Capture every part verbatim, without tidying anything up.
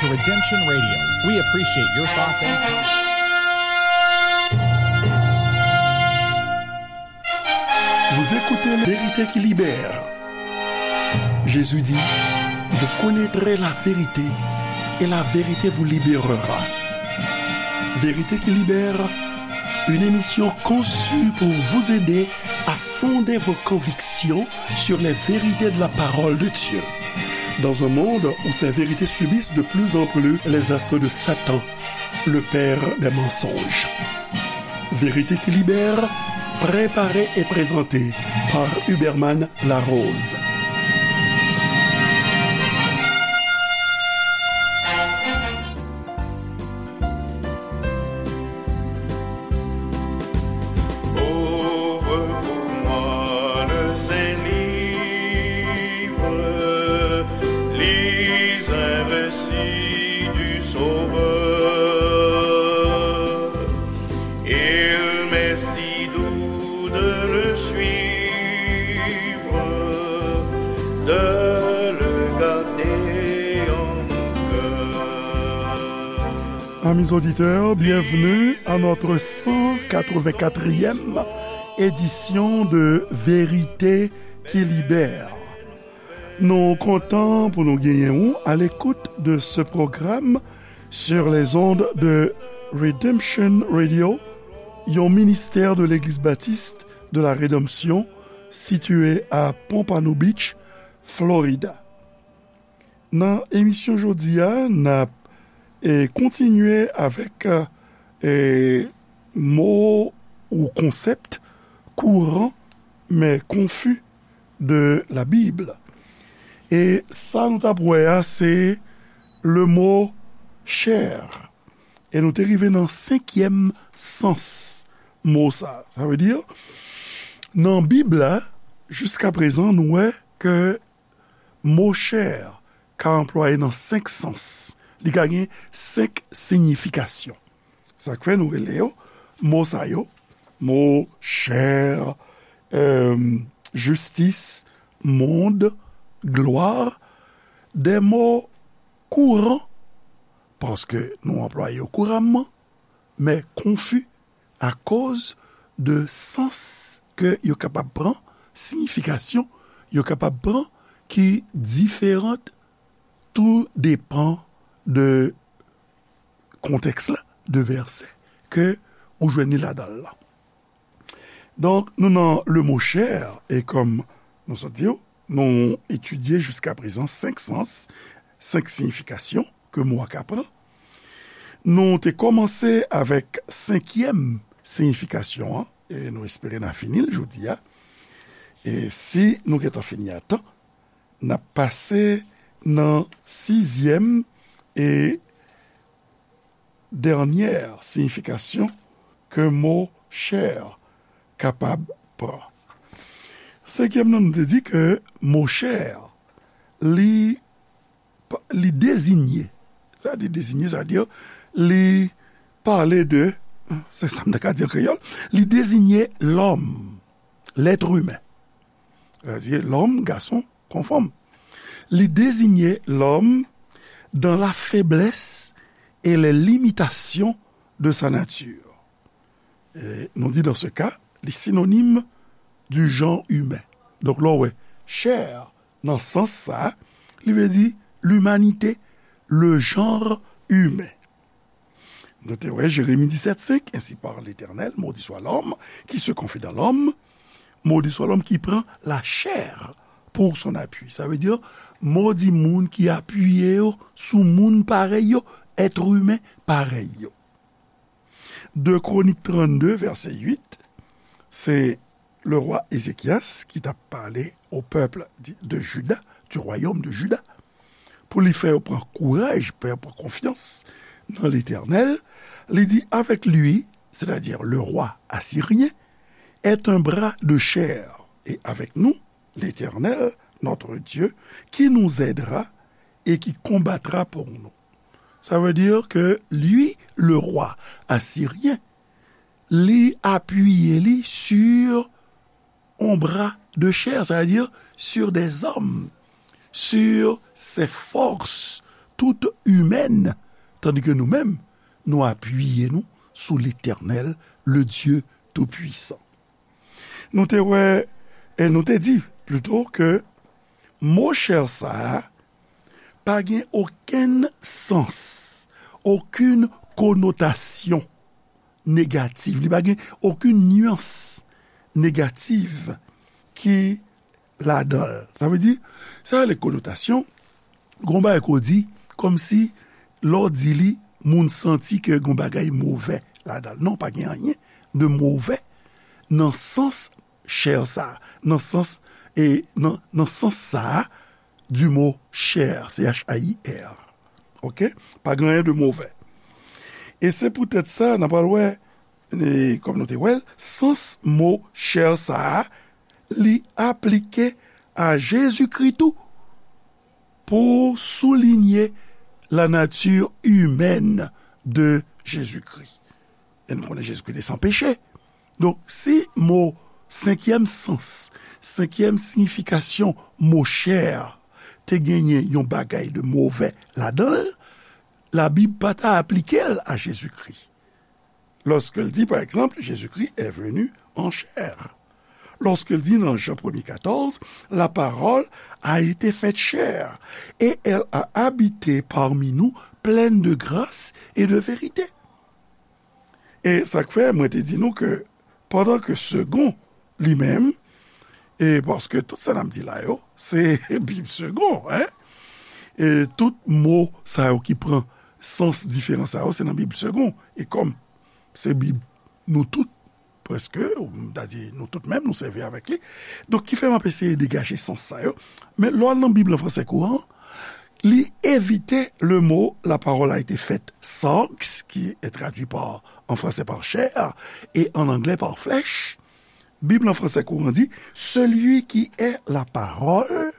Redemption Radio. We appreciate your thoughts and comments. Vous écoutez La Vérité qui libère. Jésus dit, vous connaîtrez la vérité et la vérité vous libérera. Vérité qui libère, une émission conçue pour vous aider à fonder vos convictions sur les vérités de la parole de Dieu. Dans un monde où ces vérités subissent de plus en plus les assauts de Satan, le père des mensonges. Vérité qui libère, préparée et présentée par Huberman Larose. Ouvre pour moi le Saint-Livre, lis un récit du Sauveur. Il m'est si doux de le suivre, de le garder en mon cœur. Amis auditeurs, bienvenue à notre cent quatre-vingt-quatrième édition de Vérité qui libère. Nou kontan pou nou genyen ou à l'écoute de ce programme sur les ondes de Redemption Radio, yon ministè de Legliz Batis de la Redanmsyon sitiye a Pompano Beach, Florida. Nan emisyon jodi a, n ap, e, kontinye avèk, e, mo ou konsèp kouran, men konfi de la Bible. E sa nou t ap wè a, se le mo chair. E nou te rive nan senkyèm sans mo sa. Sa vle di, nan Bib la, jiska prezan, nou wè ke mo chair ka anplwaye nan senk sans. Li ka gen senk siyifikasyon. Sa k fè nou rele yo, mo sa yo, mo chair, euh, justice, monde, gloire, de mo kouran, paske nou anplwaye yo kouramman, men konfi akoz de sans ke yo kapab pran, siyifikasyon yo kapab pran ki diferan, tou depan de kontèks la, de vèsè ke ou jwenn li ladan l la. Donk, nou nan le mo chair, e kòm nou sot di w, nou etidye jiska prezan senk sans, senk siyifikasyon ke mo a ka pran. Nou te kòmanse avèk senkyèm siyifikasyon an, e nou espere n a fini l jodi a. E si nou gentan fini a tan, n ap pase nan sizyèm e dènyè siyifikasyon ke mo chair kapab pran. Senkyèm nan, nou te di ke mo chair, li, li deziye, sa di deziye, sa di, li pale de, se sa m ta ka di an kreyòl, li deziye lòm, lèt imen. Sètadi lòm, gason kon fanm. Li deziye lòm dans la faiblesse et les limitations de sa nature. E nou di, dans ce cas, li sinonim du genre humain. Donk, lè w wè chair nan sans sa, li vle di limanite, le genre humain. Nou te wè Jeremi disèt senk, Ainsi parle l'Éternel, maudit soit l'homme qui se confie dans l'homme, maudit soit l'homme qui prend la chair pour son appui. Sa vle di, modi moun ki apiye yo sou moun parèy yo, èt imen parèy yo. De Kronik trannde, vèsè uit, se le roi Ézéchias ki t ap pale au peuple di, de Juda, du royaume de Juda, pou li fè yo pran kouraj, fè yo pran konfyans nan Letènèl, li di, avec lui, c'est-à-dire le roi assyrien, est un bras de chair, et avec nous, l'Éternel, notre Dieu, qui nous aidera et qui combattra pour nous. Ça veut dire que lui, le roi assyrien, li apiye li sur un bras de chair, c'est-à-dire sur des hommes, sur ses forces tout imèn, tandike nou menm, nou apiye nou sou Letènèl, le Dye Toupwisan. Nou te wè, e nou te di, plito, ke mo chè sa a pa gen okenn sans, okenn konotasyon negatif. Li pa gen okenn nyans negatif ki ladan l. Sa vle di, sa rele konotasyon, gon bagay ke w di, kòmsi lè w di li, moun santi ke gon bagay movè ladan l. Non, pa gen anyen de movè nan sans chè sa, nan sans, e nan, nan sans sa a, du mot chair, C H A I R. Oke? Pa gen anyen de movè. E se poutèt sa, n a pral wè, e, kòm nou te wè l, sans mo chè sa a, li aplike a Jezikri tou, pou soulinye la nature humaine de Jésus-Christ. E nou konnen Jezikri te san peche. Donk, si mo, senkyèm sans, senkyèm siyifikasyon mo chè a te genyen yon bagay de movè ladan l, Labib pa ta aplike l a Jezikri. Lòske l di, pa egzanp, Jésus-Christ est venu en chair. Lòske l di nan Jan premye katòz, La parole a été faite chair, et elle a habité parmi nous, pleine de grâce et de vérité. E sa k fè mwen te di nou ke pandan ke Segond, li menm, e paske tout sa n ap di la yo, se Bib Segond, en? E tout mo sa yo ki pran sans diferan sa yo, se nan Bib Segond. E kòm se Bib nou tout, prèske, m ta di nou tout menm, nou sèvi avèk li. Donk, ki fè m ap eseye degaje sans sa yo. Men lè w al nan Bib an fransè kouran, li evite le mot la parole a été faite sarx, qui est traduit par, en français par chair, et en anglais par flèche. Bib an fransè kouran di, Celui qui est la parole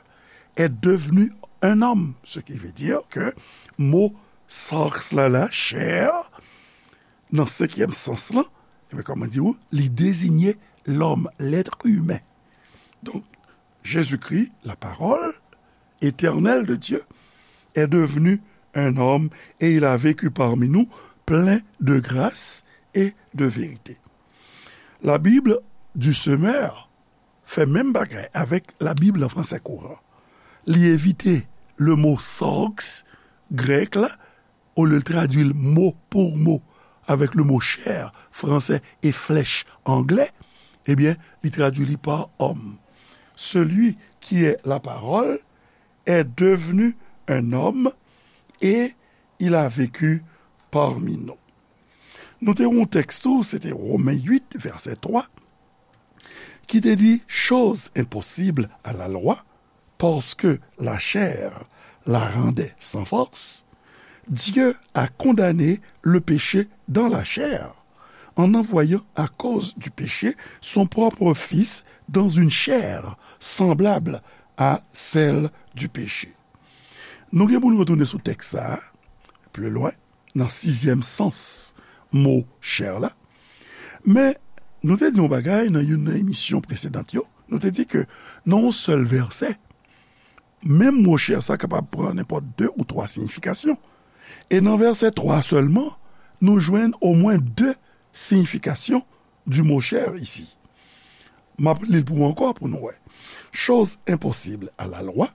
est devenu un homme. Ce qui veut dire que mo sarx la, la, chair, nan senkyèm sans lan, ebyen, kòman di w, li dezinye lòm, l'être humain. Donk, Jésus-Christ, la parole éternelle de Dieu, est devenu un homme et il a vécu parmi nous plein de grâce et de vérité. La Bible du Semeur fè menm bagay avèk Labib an fransè kouran. Li evite le mo sarx grèk la, olye l tradui l mo pou mo avèk le mo chair fransè e flèch anglè, ebyen, li tradui li pa homme. Celui qui est la parole est devenu un homme et il a vécu parmi nous. Nou te wè yon tèks tou, se te Women uit, vèsè twa, ki te di, Chose impossible à la loi, parce que la chair la rendait sans force, Dieu a condamné le péché dans la chair, en envoyant à cause du péché son propre Fils dans une chair semblable à celle du péché. Nou gen pou nou retounen sou tèks sa a, pli lwen, nan sizyèm sans mo chair la. Men, nou te di yon bagay nan youn nan emisyon presedan yo. Nou te di ke nan yon sèl vèsè, menm mo chair sa kapab pran nenpòt de ou twa siyifikasyon. E nan vèsè twa sèlman, nou jwenn omwen de siyifikasyon du mot chair ici. M ap li l pou ou ankò pou nou wè. Chose impossible à la loi,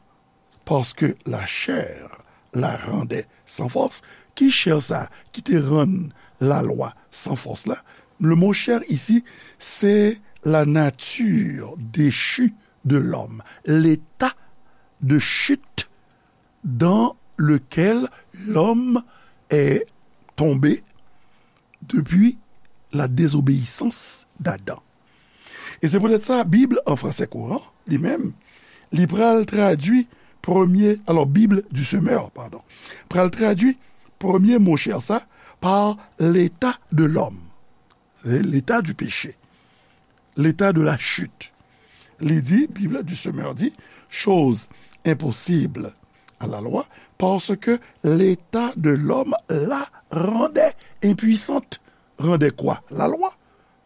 parce que la chair la rendait sans force. Ki chair sa ki te rann lalwa san fòs la? Le mot chair ici, c'est la nature déchue de l'homme, l'état de chute dans lequel l'homme est tombé depuis la désobéissance d'Adam. E se poutèt sa, Bib an fransè kouran, li menm, li pral tradui premye, alò, Bible du Semeur, padon, pral tradui premye mo chair sa pa l'état de l'homme, l'état du péché, l'état de la chute. Li di, Bible du Semeur di, chose impossible à la loi, parce que l'état de l'homme la rendait impuissante. Rendait quoi? La loi.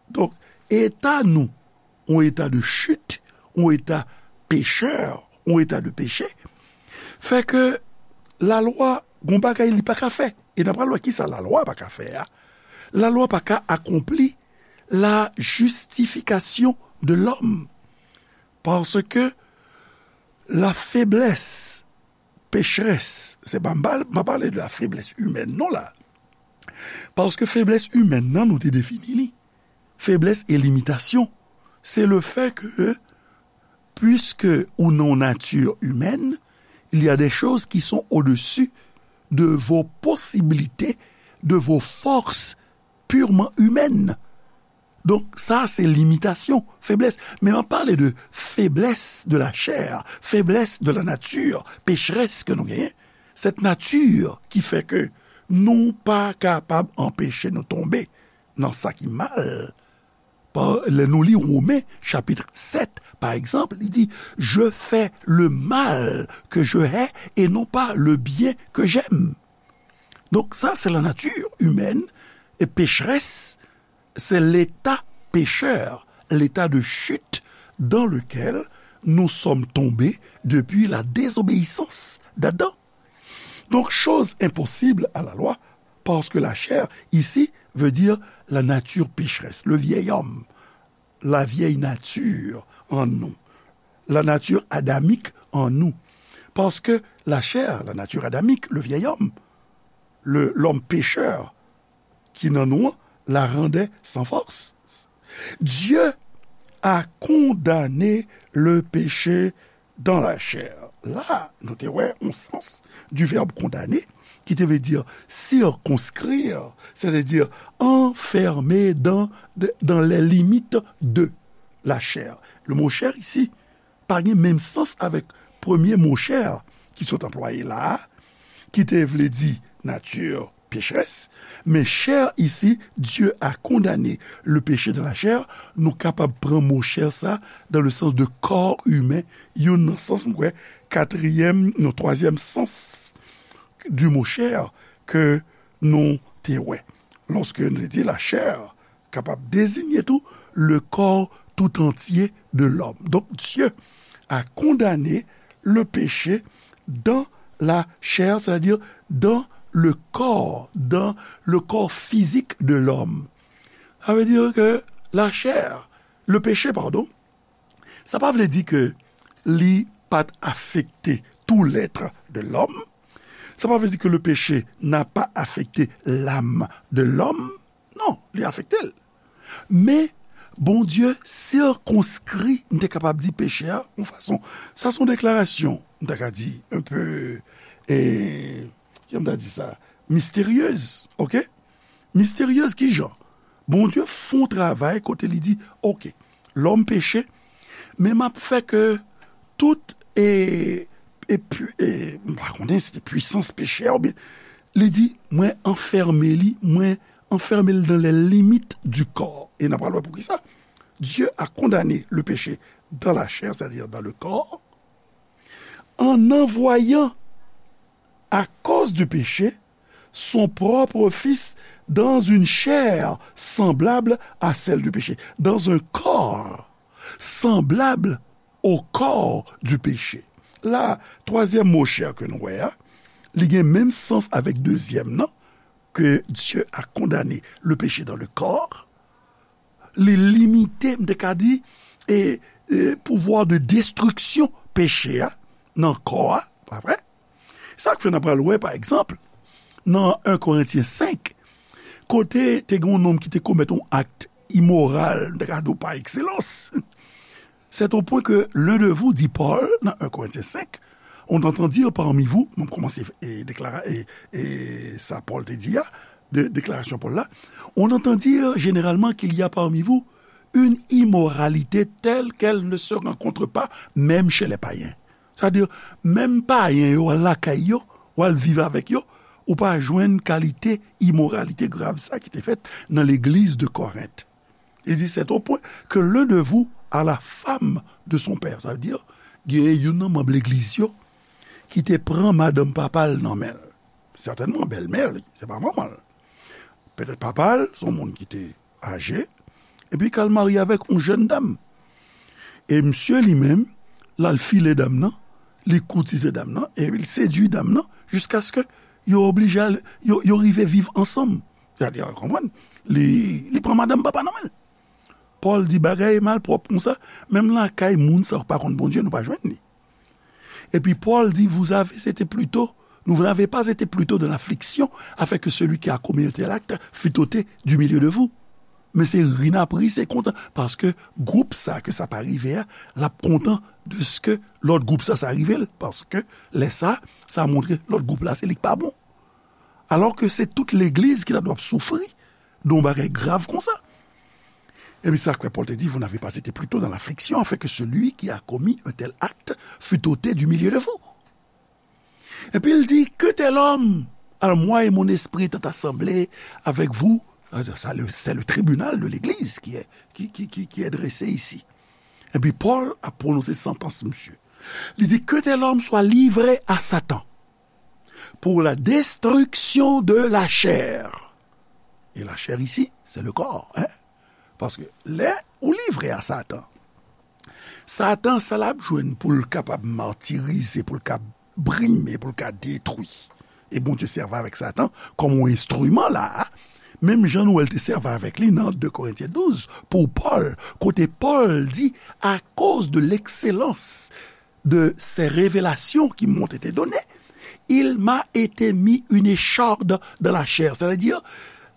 Donk, eta nou, yon eta de chit, yon eta pechè, yon eta de peche, fè ke la loi gon bagay li pa ka fè. E n ap pral wè kisa lalwa pa ka fè a. Lalwa pa ka akonpli la justification de l'homme. Paske la feblès, pechrès, se pa m pa, m pa pale de la feblès imèn non la. Paske feblès imèn nan, nou te defini li. Feblès e limitasyon, se le fait que, puisque ou nan yon nature humaine, il y a des choses qui sont au-dessus de vos possibilités, de vos forces purement humaines. Donk, sa se limitasyon, feblès. Men m ap pale de feblès de la chair, feblès de la nature, pechrès ke nou genyen. Cette nature qui fait que nou pa kapab anpeche nou tonbe nan sa ki mal. Pa, lè nou li Women, chapit sèt, pa egzanp, li di, je fais le mal que je hais et non pas le bien que j'aime. Donk, sa, se la nature humaine, e pechrès, c'est l'état pécheur, l'état de chute dans lequel nous sommes tombés depuis la désobéissance d'Adam. Donc, chose impossible à la loi, parce que la chair, ici, veut dire la nature pécheresse, le vieil homme, la vieille nature en nous, la nature adamique en nous. Parce que la chair, la nature adamique, le vieil homme, le, l'homme pécheur, ki nan nou an, la rendait sans force. Dieu a condamné le péché dans la chair. La, nou te wè yon sans du verbe condamner, ki te vle di circonscrire, c'est-à-dire enfermer dans, dans les limites de la chair. Le mot chair ici, pa gen menm sans avèk premye mo chair ki sot anplwaye la a, ki te vle di nature pécheresse, men chair ici, Dieu a condamné le péché dans la chair, nou kapab pran mo chair sa dans le sens de corps humain, youn nan sans, m kwè, katriyèm, non, twazyèm sans du mot chair ke nou te wè. Lòske nou te di la chair, kapab dezinye tou le corps tout entier de l'homme. Donc, Dieu a condamné le péché dans la chair, c'est-à-dire dans le corps, dans le corps physique de l'homme. Sa vle di ke la chair, le péché, pardon, sa pa vle di ke li pa t afekte tout l'être de l'homme. Sa pa vle di ke le péché n'a pas affecté l'âme de l'homme. Non, li afekte l. Men, Bondye sirkonskri, m te kapab di, peche a, yon fason. Sa se yon deklarasyon, m ta ka di, un peu, e, kijan m ta di sa? Misteryez, oke? Misteryez ki jan? Bondye fè yon travay kote li di, oke, lòm peche, men m ap fè ke tout, e, e, pu-, e, m pa konnen si se pwisans peche a oubyen, li di, mwen anfème li, mwen anfème l dans les limites du corps. E n ap pral wè poukisa. Dieu a condamné le péché dans la chair, c'est-à-dire dans le corps, en envoyant, à cause du péché, son propre Fils dans une chair semblable à celle du péché, dans un corps semblable au corps du péché. La, twazyèm mo chair ke nou wè a, li gen menm sans avèk dezyèm nan, que Dieu a condamné le péché dans le corps, li limite, m te ka di, e, e, pouvwa de destriksyon peche a nan kò a, pa vre? Sa k fè n ap pral wè, pa egzanp, nan en Korentyen senk, kote te gen yon nonm ki te komèt yon akt imoral, m te ka di w pa ekselans. C'est au point que l'un de vous, dit Paul, dans un Corinthiens cinq, on entend dire parmi vous, m ap kòmanse, e, deklara-, e, e, sa Pòl te di a, de, deklarasyon Pòl la, on entend dire généralement qu'il y a parmi vous une immoralité telle qu'elle ne se rencontre pas même chez les païens. Sa vle di, menm payen yo, w al lakay yo, w al viv avèk yo, ou pa jwenn kalite imoralite grav sa ki te fèt nan legliz de Korent. Il dit, c'est au point que l'un de vous a la femme de son père. Sa vle di, gen youn nan manm legliz yo ki te pran madanm papa l nan men l. Sètènman, bèlmè li, se pa manman l. Petèt papa l, se yon moun ki te aje, epi k al marye avèk yon jèn dam. E misye li menm, l al file dam nan, li koutize dam nan, epi l sedui dam nan, jiskaske Yo oblije al, yo, yo rive viv ansanm. Gade, w konprann? Li, li pran madanm papa nan men l. Pòl di bagay malpwòp konsa, menm lakay moun sa yo pa konn Bondye, nou pa jwenn li. Epi Pòl di, vous avez été plutôt, vous n'avez pas été plutôt dans l'affliction, afin que celui qui a commis un tel acte fût ôté du milieu de vous. Men se ri n ap ri, se kontan, paske gwoup sa ke sa pa rive a, l ap kontan de ce que lòt gwoup sa, sa rive l, paske lè sa, sa montre lòt gwoup la, se li k pa bon. Alò ke se tout legliz ki ta dwe ap soufri de yon bagay grav konsa. Epi sa k fè Pòl te di, vous n'avez pas été plutôt dans l'affliction, afin que celui qui a commis un tel acte fût ôté du milieu de vous. Epi l di, que tel homme, alors moi et mon esprit étant assemblés avec vous, c'est le, c'est le tribunal de l'église qui est, qui, qui, qui, qui est dressé ici. Epi Pòl ap pwononse santans misye. Li di, que tel homme soit livré à Satan pour la destruction de la chair. Et la chair ici, c'est le corps, hein? Paske lè ou livre a Satan, Satan, sa l ap jwenn pou l kapab matirize, pou l ka brime, pou l ka detwi. E Bondye sèvi avèk Satan kòm yon enstriman la a, menm jan nou wè l te sèvi avèk li nan de Korentyen douz, pou Pòl, kote Pòl di, à cause de l'excellence de ces révélations qui m'ont été données, il m'a été mis une écharde dans la chair. C'est-à-dire,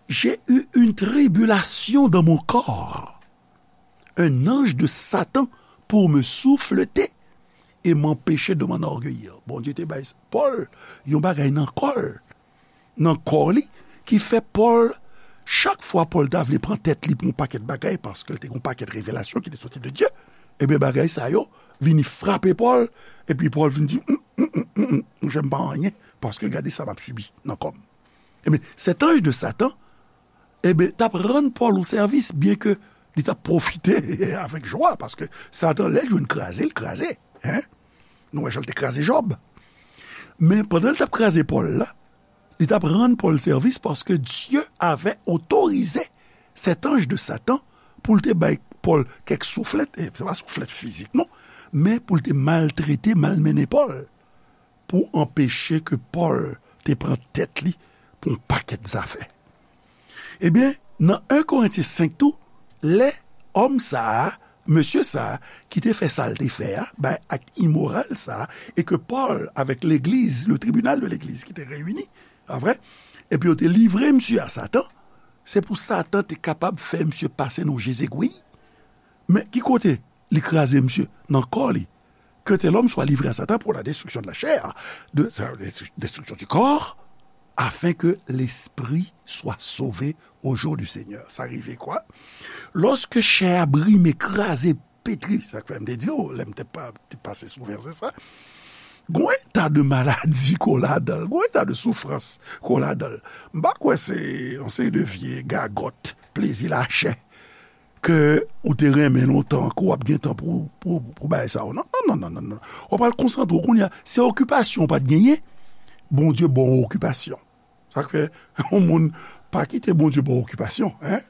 j'ai eu une tribulation dans mon corps. Un ange de Satan pour me souffleter et m'empêcher de m'enorgueillir. Bondye te bay Pòl yon bagay nan kò l, nan kò li, ki fè Pòl, chak fwa Pòl ta vle pran tèt li pou yon pakèt bagay, paske l te gen yon pakèt revelasyon ki te soti de Dye, ebyen, bagay sa yo vini frape Pòl, epi Pòl vin di, "Mm, mm, mm, mm, mm, monchè, m pa anyen, paske gade sa m ap sibi nan kò m." Ebyen, cet ange de Satan, ebyen, t ap rann Pòl yon sèvis, byen ke li t ap pwofite avèk jwa, paske Satan, lè l jwenn kraze, l kraze. Hein? Nou wè jan l te kraze Jòb. Men pandan l t ap kraze Pòl la, li t ap rann Pòl sèvis paske Dieu avait autorisé cet ange de Satan pou l te bay Pòl kèk souflèt, e se pa souflèt fizik non, men pou l te maltrete, malmennen Pòl, pou anpeche ke Pòl te pran tèt li pou yon pakèt zafè. Ebyen, nan en Korentyen senk tou, lè òm sa a, mesye sa a, ki te fè sa l te fè a, bay ak imoral sa a, e ke Pòl avèk legliz, le tribunal de legliz ki te reyini, pa vre, epi yo te livre misye a Satan, se pou Satan te kapab fè misye pase nan je zegwi. Men ki kote li kraze misye? Nan kò li. Que tel homme soit livré à Satan pour la destruction de la chair, de, de, destruction du corps, afin que l'esprit soit sauvé au jour du Seigneur. Sa rive kwa? Lòske chè a brime, kraze, petri, sa k fè m te di w, lè m te pa, te pase sou vèsè sa, gon eta de maladi ko ladan l, gon eta de soufrans ko ladan l. M pa kwè se yon seri de vye gagòt, plezi lachè ke ou te renmen lontan, ke w ap gen tan pou, pou, pou bagay sa yo. Non, non, non, non, non, non. W ap al konsantre w kounye a. Se okipasyon w pa t genyen, Bondye ba w okipasyon. Sa k fè, yon moun pa kite Bondye ba w okipasyon, hein?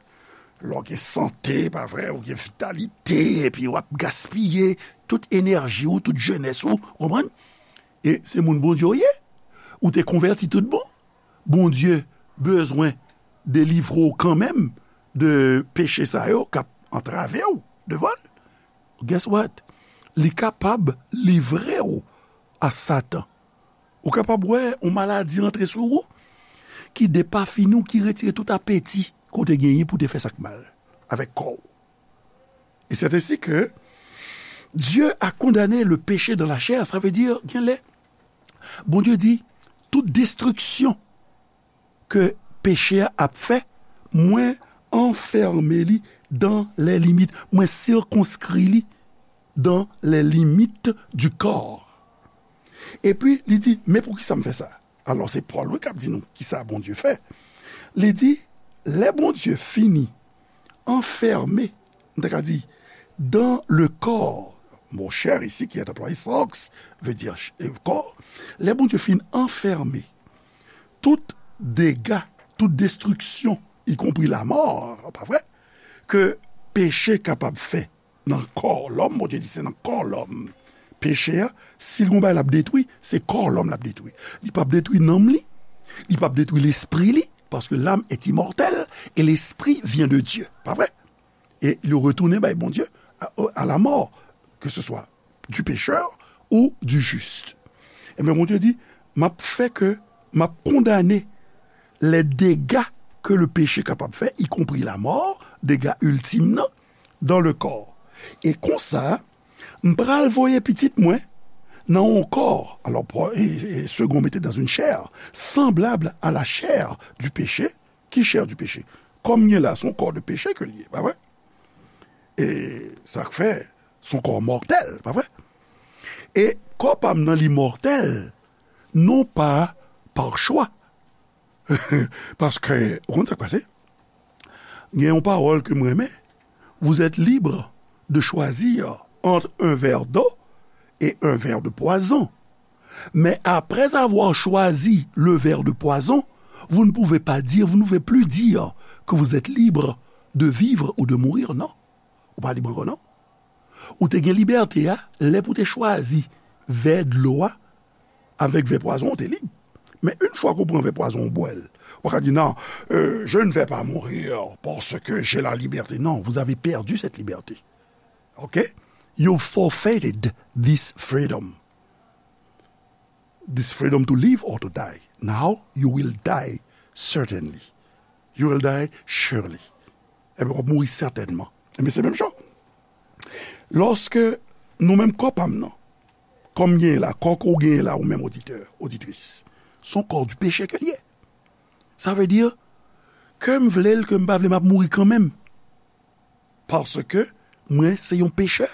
Lè w gen sante, pa vre, ou gen vitalite, epi w ap gaspiye tout enèji w, tout jenès ou, w konprann? E se moun Bondye w ye. Ou te konvèti tout bon. Bondye bezwen delivre w kanmenm de peche sa yo k ap antrave w devan l. Guess what? Li kapab livre w a Satan. Ou kapab wè yon maladi antre sou ou ki depafini w, ki retire tout apeti ke w te genyen pou w te fè sa k mal avèk kò w. Et c'est ainsi que Dieu a condamné le péché dans la chair. Sa vle di, gen lè, Bondye di, tout destriksyon ke peche a ap fè, mwen anfème li dans les limites, mwen sikonskri li dans les limites du corps. Epi, li di, men poukisa m fè sa? Alò, se Pòl, wi, k ap di nou kisa Bondye fè. Li di, lè Bondye fini anfème, m ta ka di, dans le corps, mo chair ici qui est employé, sarx, veut dire ch-, euh, corps. Lè Bondye fin anfème tout dega, tout destriksyon, y compris la mort, pa vre, ke peche kapab fè nan kò lòm, Bondye di se nan kò lòm peche a, si l gon bagay l ap detwi, se kò lòm l ap detwi. Li p ap detwi nanm li, Li p ap detwi lespri li, paske l'âme est immortelle et l'esprit vient de Dieu. Pa vre? E yo retounen bay Bondye a, a la mort, que ce soit du pécheur ou du juste. Ebyen, Bondye di, m ap fè ke, m ap kondane les dégâts que le péché kapab fè, y compris la mort, dega iltim nan, dans le corps. E konsa, m pral voye pitit mwen nan yon kò, alors, pour- et, et second, mettez dans une chair, semblable à la chair du péché. Ki chair du péché? Kò m gen la, se yon kò de peche ke l ye, pa vre? E sa k fè, se yon kò mòtèl, pa vre? E kò pa m nan, li mòtèl, non pa par choix. Paske, ou konn sa k pase? Gen yon pawòl ke m renmen, vous êtes libre de choisir entre un verre d'eau et un verre de poison. Mais après avoir choisi le verre de poison, vous ne pouvez pas dire, vous ne pouvez plus dire que vous êtes libre de vivre ou de mourir, non. Ou pa lib ankò, non. Ou te gen libète a, lè pou te chwazi vè dlo a, avèk vè pwazon, ou te lib. Men yon fwa ke w pran vè pwazon, ou bwè l. Ou pa ka di, non, euh, je ne vais pas mourir parce que j'ai la liberté. Non, vous avez perdu cette liberté. OK? You forfeited this freedom. This freedom to live or to die. Now you will die certainly. You will die surely. Ebyen, w ap mouri sètènman. Ebyen, se menm jan. Lòske nou menm kò pa m nan, kò m genyen la, kò ke w genyen la, ou menm oditè, oditris, se yon kò du péché ke l ye. Sa vle di, ke m vle l, ke m pa vle, m ap mouri kanmenm. Paske mwen se yon pechè,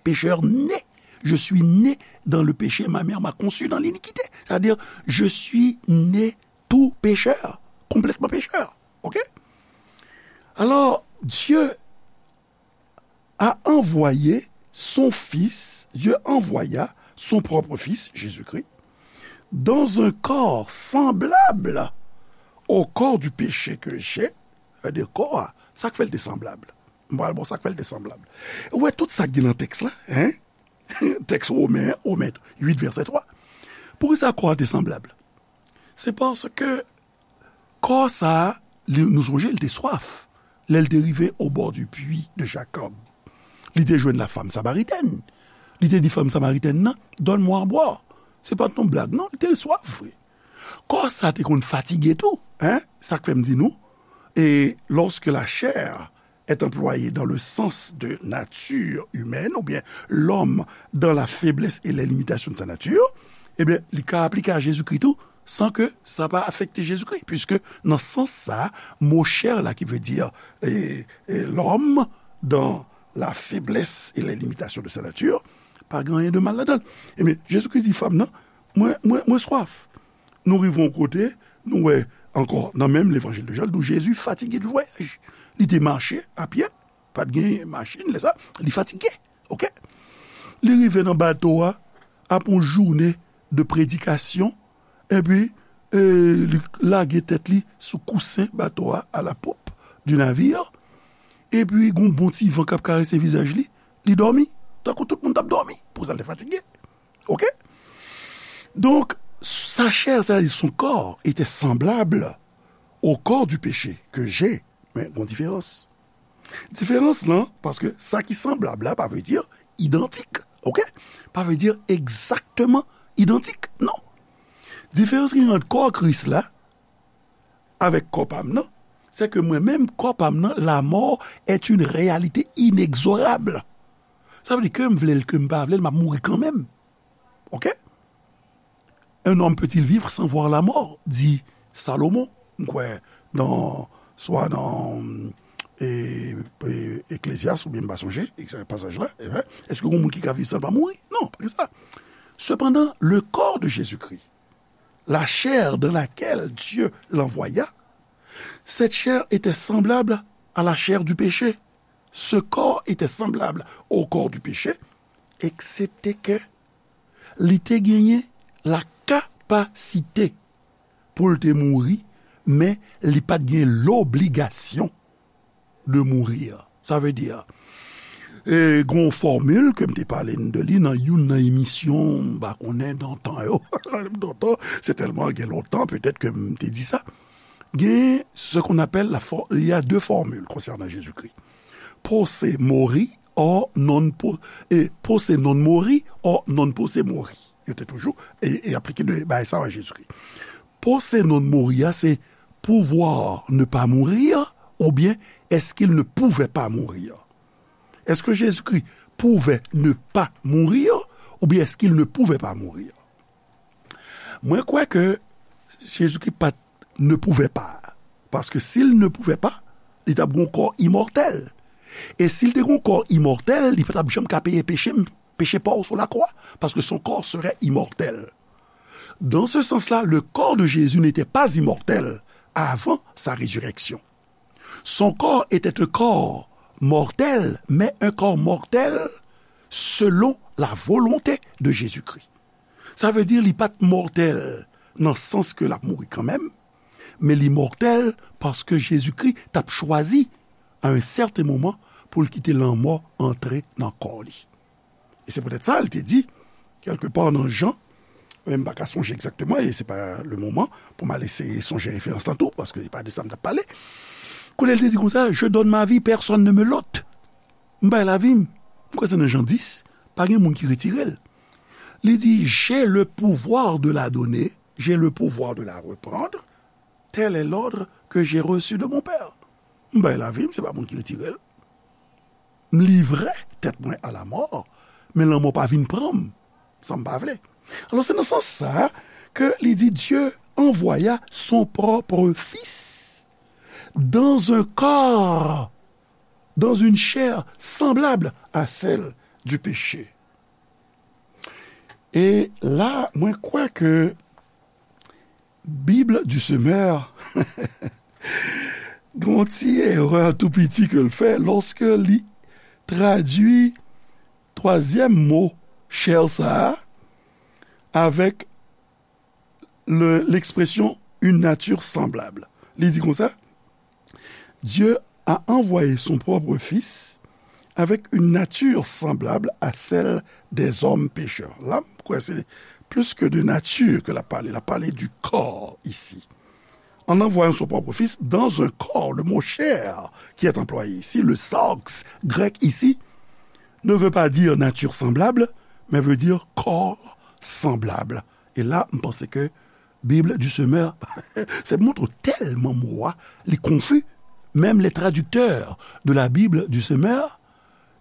pechè ne. Je suis né dans le péché, ma mère m'a conçu dans l'iniquité. C'est-à-dire, je suis né tout pécheur, complètement pécheur. OK? Alors, Dieu a envoyé son Fils, Dieu envoya son propre Fils, Jésus-Christ, dans un corps semblable au corps du péché que j'ai, c'est-à-dire kò a, sa k fè l te sanblab. M pral ba w sa k fè l te sanblab. Ou wè tout sa k gen nan tèks la, hein? Tèks Women, Women uit, vèsè twa. Poukisa kò a te sanblab? Se paske kò sa a, li, nou sonje, li te swaf. Lè l te rive au bord du puits de Jacob, li te jwenn la femme samaritaine. Li te di fanm samaritèn nan, donne-moi à boire. Se pa t yon blag, non, li te swaf vre. Kò sa te konn fatige tou, hein? Sa k fè m di nou, et lorsque la chair est employée dans le sens de nature humaine, oubyen l'homme dans la faiblesse et les limitations de sa nature, ebyen, li ka aplike a Jezikri tou, san ke sa pa afekte Jezikri, puiske nan sans sa, mo chair la ki vle di, e, e, l'homme dans la faiblesse et les limitations de sa nature, pa gen anyen de mal ladan l. Ebyen, Jezikri di fanm nan, mwen, mwen, mwen swaf. Nou rive yon kote, nou wè ankò nan menm levanjil de Jan, nou Jezi fatige de vwayaj. Li te mache a pye, pa t gen machin lè sa, li fatige. OK? Li rive nan bato a, apre yon jounen de predikasyon, epi, e, li lage tèt li sou kousen bato a, à la poupe du navire, epi gon bon ti van k ap karese vizaj li, li dòmi, tankou tout moun t ap dòmi, pou sa l te fatige. OK? Donk, sa chair, c'est-à-dire son corps, était semblable au corps du péché que j'ai. Men, gon diferans. Diferans lan, paske sa ki sanblab la, pa vle di idantik, OK? Pa vle di egzakteman idantik, non. Diferans ki ant kò Kris la avèk kò pa m nan, se ke mwen menm, kò pa m nan, la mort est une réalité inexorable. Sa vle di ke m vle l, ke m pa vle l, m ap mouri kanmenm. OK? Un homme peut-il vivre sans voir la mort? Di Salomon, m kwè, nan, swa nan, e, e, Eklezyas, oubyen m pa sonje, e, pasaj la, e, èske gen moun ki ka viv san l pa mouri? Non, pa gen sa. Cependant, le corps de Jésus-Christ, la chair dans laquelle Dieu l'envoya, cette chair était semblable à la chair du péché. Ce corps était semblable au corps du péché, excepté que li te genyen la kapasite pou l te mouri, men li pa t gen lobligasyon de mourir. Sa vle di, E gen yon fòmil ke m te pale de li nan youn nan emisyon, m pa konnen, dan tan yo. Dan tan, se tèlman gen lontan, petèt ke m te di sa. Gen ce qu'on appelle la for-, il y a deux formules concernant Jésus-Christ. Posse mori, or non po-, e posse non mori, or non posse mori. Yo te toujou e, e aplike de bagay sa a Jezikri. Posse non mori a, se pouvoir ne pas mourir, oubyen est-ce qu'il ne pouvait pas mourir? Est-ce que Jésus-Christ pouvait ne pas mourir, oubyen est-ce qu'il ne pouvait pas mourir? Mwen kwè ke Jezikri pa t ne pouvait pas, paske si l ne pouvait pas, li t ap gen yon kò imòtèl. E si l te gen yon kò imòtèl, li pa t ap janm ka peye peche m, peche pa w sou lakwa, paske son corps serait immortel. Dans ce sens-là, le corps de Jésus n'était pas immortel avant sa résurrection. Son corps était un corps mortel, mais un corps mortel selon la volonté de Jésus-Christ. Sa vle di li pa t mòtèl nan sans ke l ap mouri kanmenm, men li mòtèl paske Jezikri t ap chwazi, à un certain moment, pou l kite lanmò antre nan kò li. E se poutèt sa, l te di, kèlkepa nan Jan, men m pa ka sonje egzakteman, e se pa le moman pou m al eseye sonje referans lan tou, paske se pa de sa m t ap pale. Kote l te di konsa, "Je donne ma vie, personne ne me l'ôte." M bay lavi m. M kwè se nan Jan dis, pa gen moun ki retire l. Li di, "J'ai le pouvoir de la donner, j'ai le pouvoir de la reprendre, tel est l'ordre que j'ai reçu de mon Père." M bay lavi m, se pa moun ki retire l. M livre tèt mwen à la mort, men lanmò pa vin pran m, sa m pa vle. Alò, se nan sans sa ke li di, Dieu envoya son propre Fils dans un corps, dans une chair semblable à celle du péché. E la, mwen kwè ke Bible du Semeur gen yon ti erè tou piti ke l fè lòske li tradui twazyèm mo chè sa a avèk le, l'expression une nature semblable. Li di konsa, Dieu a envoyé son propre Fils avec une nature semblable à celle des hommes pécheurs. La, m kwè se plis ke de nati ke l ap pale. L ap pale du corps ici. En envoyant son propre Fils dans un corps, le mot chair qui est employé ici, le sarx grec ici, ne veut pas dire nature semblable, mais veut dire corps semblable. E la, m panse ke Bible du Semeur, se montre tèlman mo a, li konfi. Menm les traducteurs de la Bible du Semeur,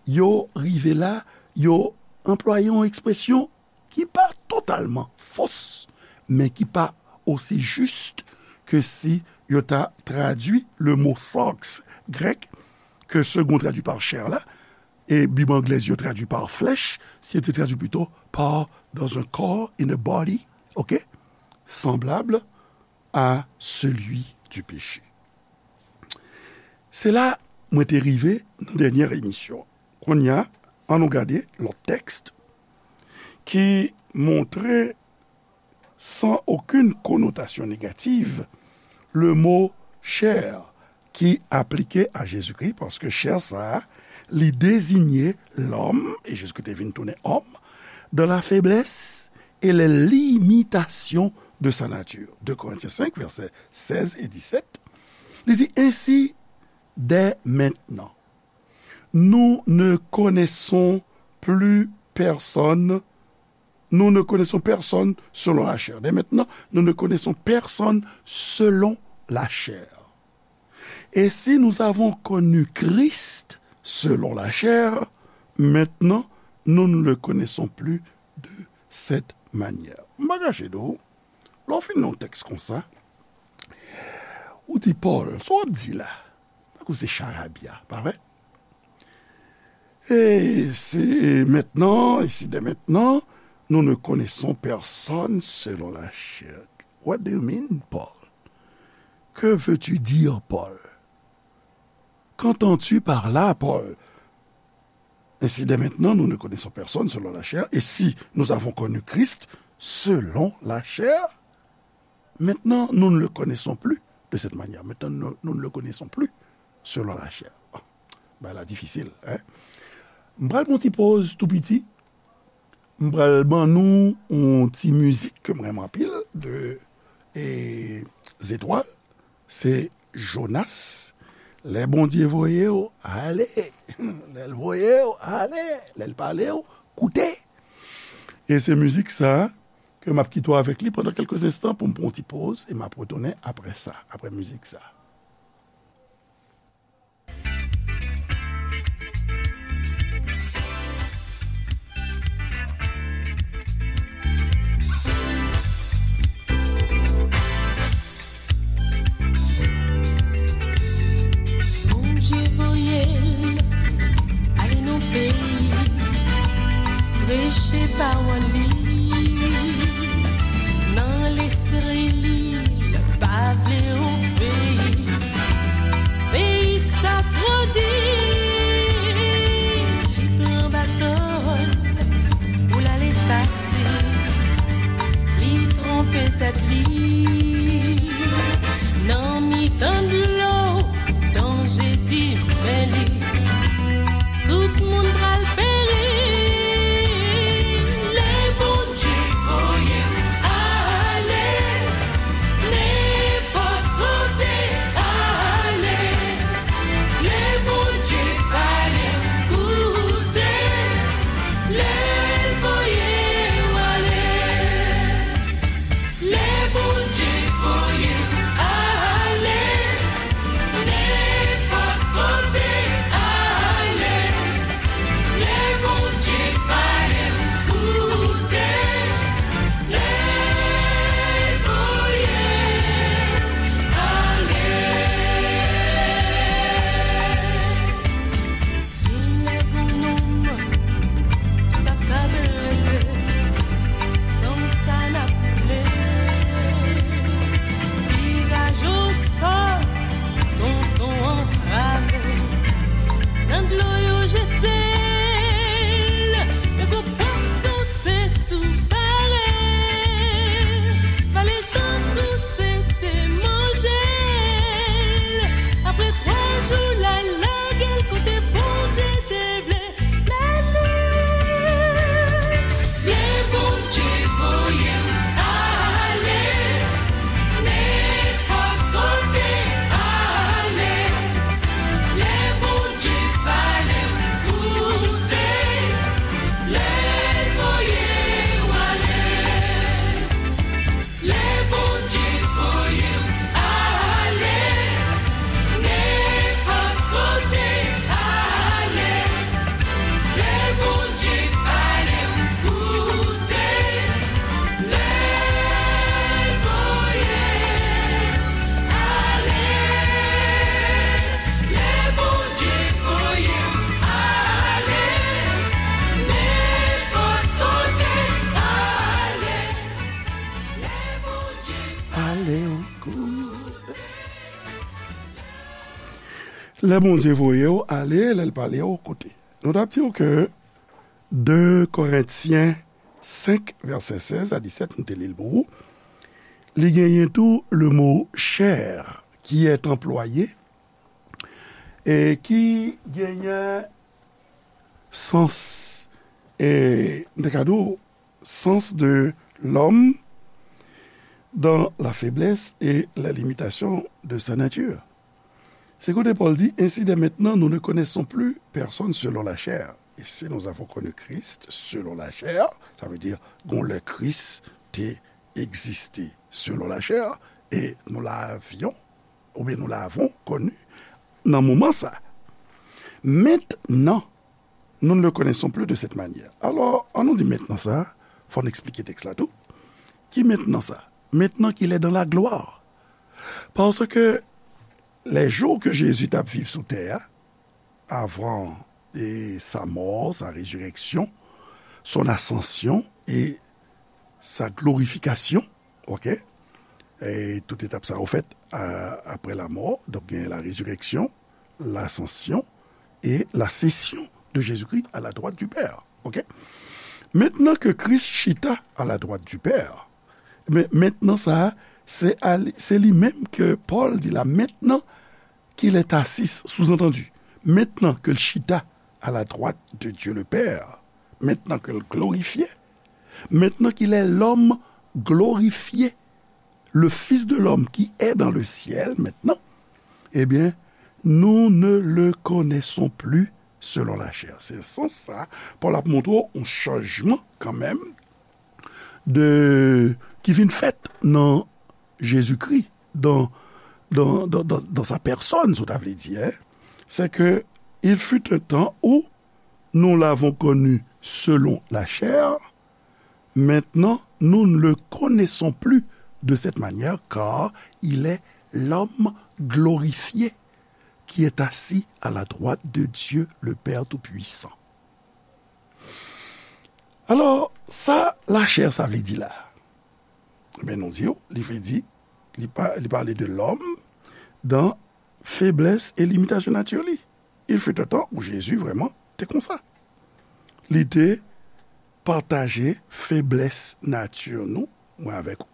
yo rive la, yo anplwaye yon ekspresyon ki pa totalman fos, men ki pa osi jis ke si yo ta tradui le mo sarx grek ke Segond tradui pa chair la, e Bib anglèz yo tradui pa flesh, si yo te tradui plito pa dans un corps, in a body, ok, semblable à celui du péché. Se la mwen te rive nan dènyè emisyon. Kounye a, ann nou gade lòt tèks ki montre sans aucune connotation négative, le mot chair ki aplike a Jezikri, paske chè sa a, li deziye lòm, e Jezikri te vin tounen òm, dans la faiblesse et les limitations de sa nature. De Korentyen senk, vèsè sèz e disèt, li di, Ainsi, dès maintenant, nous ne connaissons plus personne, nous ne connaissons personne selon la chair. Dès maintenant, nous ne connaissons personne selon la chair. Et si nous avons connu Christ selon la chair, maintenant, nous ne le connaissons plus de cette manière. M pa kache di w, lè w fin nan yon tèks konsa, ou di, Pòl, sa w ap di la, tankou se charabya, pa vre? Et c'est maintenant, et si dès maintenant, nous ne connaissons personne selon la chair. What do you mean, Paul? Que veux-tu dire, Paul? Qu'entends-tu par là, Paul? Ainsi, dès maintenant, nous ne connaissons personne selon la chair, et si nous avons connu Christ selon la chair, maintenant, nous ne le connaissons plus de cette manière. Maintenant, nous, nous ne le connaissons plus selon la chair. Bagay la difisil, hein? M pral pran ti poz tou piti. M pral ban nou yon ti mizik ke m renmen anpil de e, Zetwal. Se Jonas. Lè Bondye voye w, ale. Lè l voye w, ale. Lè l pale w, koute. E se mizik sa ke m ap kite w avèk li pandan kèlke enstan pou m pran yon ti poz e m ap retounen apre sa, apre mizik sa. Bondye voye l ale nan peyi, preche pawòl li nan lespri li, l pa vle obeyi. Peyi sa twò di, li pran bato l pou l ale pase. Li twonpe tèt li nan mitan dlo, danje di men li. Tout moun pral peri. Lè Bondye voye m ale, nenpòt kote ale. Lè Bondye pale m, koute. Lè l voye w ale. Lè Bondye voye m ale, nenpòt kote ale. Lè Bondye pale m, koute. Lè l voye m ale. Genlè gon nonm ki p ap ka rete, san sa n ap koule. Tiraj osò, tonton antrave, nan dlo yo jete l, men gon pwason te tou pare. Vale l tankou se te manje l. Apre twa jou, l al lage l kote Bondye te vle mennen l. Lè Bondye voye m ale, nenpòt kote ale. Lè Bondye pale m, koute. Lè l voye w ale. Lè Bondye voye m ale, nenpòt kote ale. Lè Bondye pale m, koute. Lè l voye m ale. Lè Bondye voye m ale, nenpòt kote ale. Lè Bondye pale m, koute. Lè Bondye voye w ale, lè l pale w, koute. Nou t ap di w ke de Korentyen senk, vèsè sèz a disèt, nou te li l pou ou. Li genyen tou le mo chair qui est employé e ki genyen sans, e, m te ka di w, sens de l'homme dans la faiblesse et la limitation de sa nature. Se kote Pòl di, ainsi dès maintenant, nous ne connaissons plus personne selon la chair. Et si nous avons connu Christ selon la chair, sa vle di, gon lè Kris te egziste selon la chair, e nous l'avions, oubyen nous l'avons connu, nan moman sa. Maintenant, nous ne le connaissons plus de cette manière. Alò, an nou di mentnan sa, fò n eksplike tèks la tou. Ki mentnan sa? Maintenant qu'il est dans la gloire. Parce que les jours que Jésus t ap viv sou tè a, avant et sa mort, sa résurrection, son ascension et sa glorification, ok? E tout etap sa yo fèt a, apre lamò. Donk, gen la résurrection, l'ascension et la session de Jésus-Christ à la droite du Père. Ok? Mentnan ke Kris chita à la droite du Père, men, mentnan sa a, se a li, se li menm ke Pòl di la, maintenant qu'il est assis, sous-entendu, mentnan ke l chita à la droite de Dieu le Père, maintenant qu'il est glorifié, maintenant qu'il est l'homme glorifié, le Fils de l'homme qui est dans le ciel maintenant, eh bien, nous ne le connaissons plus selon la chair. Se sans sa, Pòl ap montre w yon chanjman kanmenm de, ki vin fèt nan Jezikri, dans, dans, dans, dans, dans sa personne, si w ta vle di, hein. C'est que il fut un temps où nous l'avons connu selon la chair, maintenant nous ne le connaissons plus de cette manière, car il est l'homme glorifié qui est assis à la droite de Dieu le Père Tout-Puissant. Alò, sa lachè sa vle di la? Ebyen, nou di w, li vle di, li, pa, li pale de lòm dan feblès e limitasyon nati li. Il fut un temps où Jésus vrèman te konsa. Li te pataje feblès nati nou, mwen avèk ou.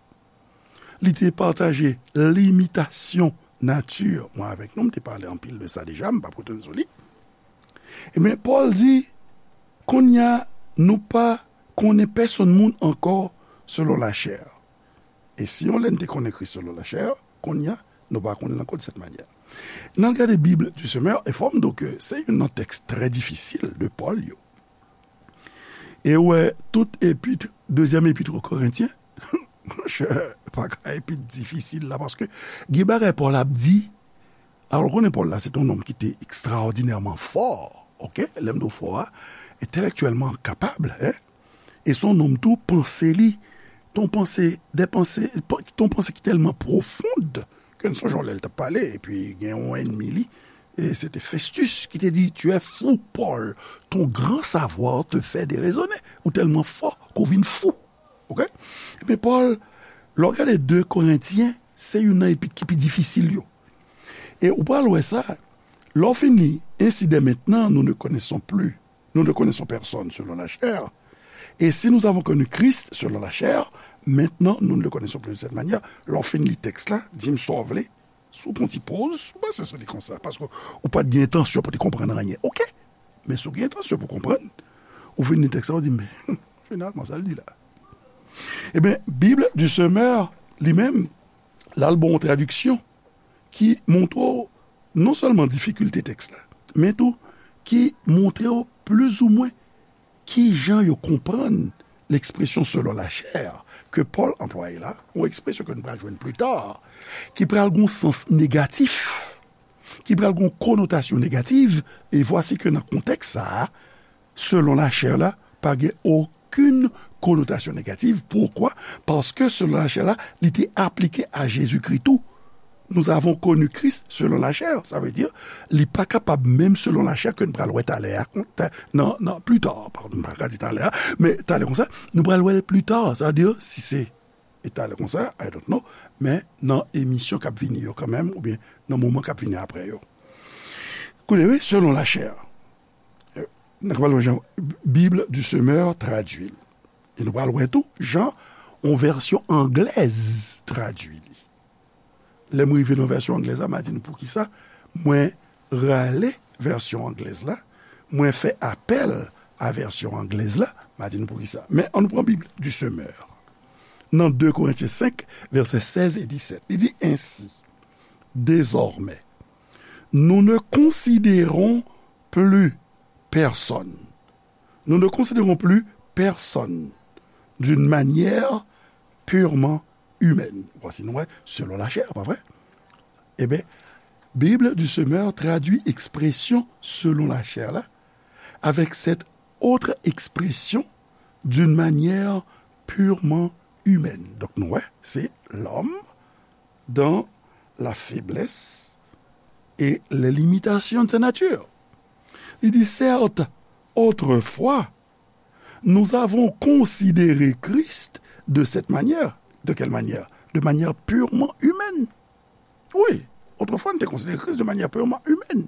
Li te pataje limitasyon nati mwen avèk nou. M te pale anpil de sa deja, m p ap retounen sou li. Ebyen, Pòl di, kounye a, nou pa konnen pèsonn moun ankò selon lachè. E si yon lè n te konnen Kris selon lachè, kounye a, nou pa konnen l ankò de sèt manyè. N al gade Bible du Semeur, e fò m di w ke se youn nan tèks trè difisil de Pòl yo. E w wè, tout epit, dezyèm epit o Korentyen, monchè, pa ka epit difisil la, paske gen bagay Pòl ap di, alò, w konnen Pòl la, se t yon nonm ki te ekstraòdinèman fò, oke? Lè m di w fò a, entèlèktyèlman kapab, en? E se yon nonm tou, panse li, t on panse, de panse, t on panse ki tèlman pwofond, ke n sonje yon lè l t ap pale, epi gen yon ènmi li, e se te Festus ki te di, Tu es fou, Paul, ton grand savoir te fait déraisonner. Ou tèlman fò ke w vin fou. Oke? Ebyen, Pòl, lè w gade de Korentyen, se youn nan epit ki pi difisil yo. E ou pral wè sa, lè w fin li, Ainsi dès maintenant, nous ne connaissons plus, nous ne connaissons personne selon la chair. Et si nous avons connu Christ selon la chair, maintenant nous ne le connaissons plus de cette manière. Lè w fin li tèks la, di m sa w vle, si w pran ti poz, si w panse sou li konsa, paske ou pa t gen entansyon pou te konprann anyen. Oke? Men si w gen entansyon pou konprann, ou fin li tèks la, ou di, men, finalman, sa l di la. Ebyen, Bible du Semeur, li menm, l al ba w yon tradiksyon ki montre w non sèlman difikilte tèks la, men tou ki montre w plizoumwen ki jan yo konprann lekspresyon selon lachè ke Pòl anplwaye la, yon ekspresyon ke nou pral jwenn pli ta, ki pral gen yon sans negatif, ki pral gen yon konotasyon negatif, e vwasi ke nan kontèks sa a, selon lachè la, pa gen okenn konotasyon negatif. Poukwa? Paske selon lachè la, li te aplike a Jezikri tou. Nous avons connu Christ selon la chair. Sa vle di, li pa kapab menm selon lachè ke n pral wè talè a, nan, nan, pli ta, padon, m pa ka di talè a, men talè konsa, nou pral wè l pli ta. Sa vle di, si se e talè konsa, I don't know, men nan emisyon k ap vini yo kanmenm, oubyen nan moman k ap vini apre yo. Koute, wi, selon lachè. N a pral wè jan Bible du Semeur tradui l. E nou pral wè tou jan yon vèsyon anglèz tradui li. Lè m rive nan vèsyon anglèz la, m a di nou poukisa mwen rale vèsyon anglèz la, mwen fè apèl a vèsyon anglèz la, m a di nou poukisa. Men ann nou pran Bib du Semeur. Nan de Korentyen senk, vèsè sèz e disèt, li di, Ainsi, désormais, nous ne considérons plus personne. Nous ne considérons plus personne d'une manière purement humaine. Vwasi nou wè, selon lachè, pa vre? Ebyen, Bible du Semeur tradui ekspresyon selon lachè la avec cette autre expression d'une manière purement humaine. Donk nou wè, se l'homme dans la faiblesse et les limitations de sa nature. Li di, Certes, autrefois, nous avons considéré Christ de cette manière. De quelle manière? De manière purement humaine. Wi, otrefwa, nou te konsidere Kris de manyè purman imèn.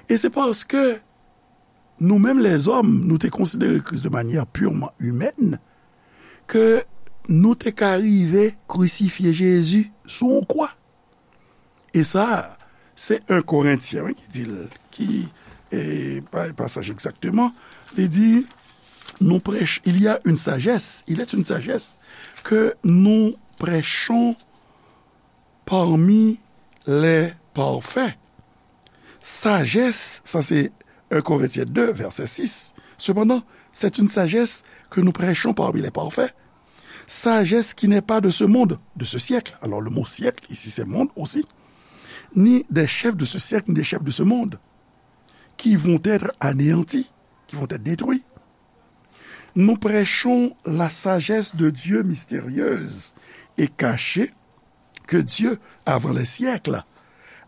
E se paske nou menm lèzòm, nou te konsidere Kris de manyè purman imèn, ke nou te ka rive krisifye Jezi sou yon kwa. E sa, se en Korentyen, wi, ki di l, ki, e, pa, pasaj egzakteman, li di, nous prêch-, il y a une sagesse, il est une sagesse que nous prêchons parmi les parfaits. Sagesse, sa se un Corinthiens deux, verset six. Cependant, c'est une sagesse que nous prêchons parmi les parfaits. Sagesse qui n'est pas de ce monde, de ce siècle. Alors, le mot siècle, ici, c'est monde aussi. Ni des chefs de ce siècle, ni des chefs de ce monde, qui vont être anéantis, qui vont être détruits. Nous prêchons la sagesse de Dieu mystérieuse et cachée, que Dieu, avant les siècles,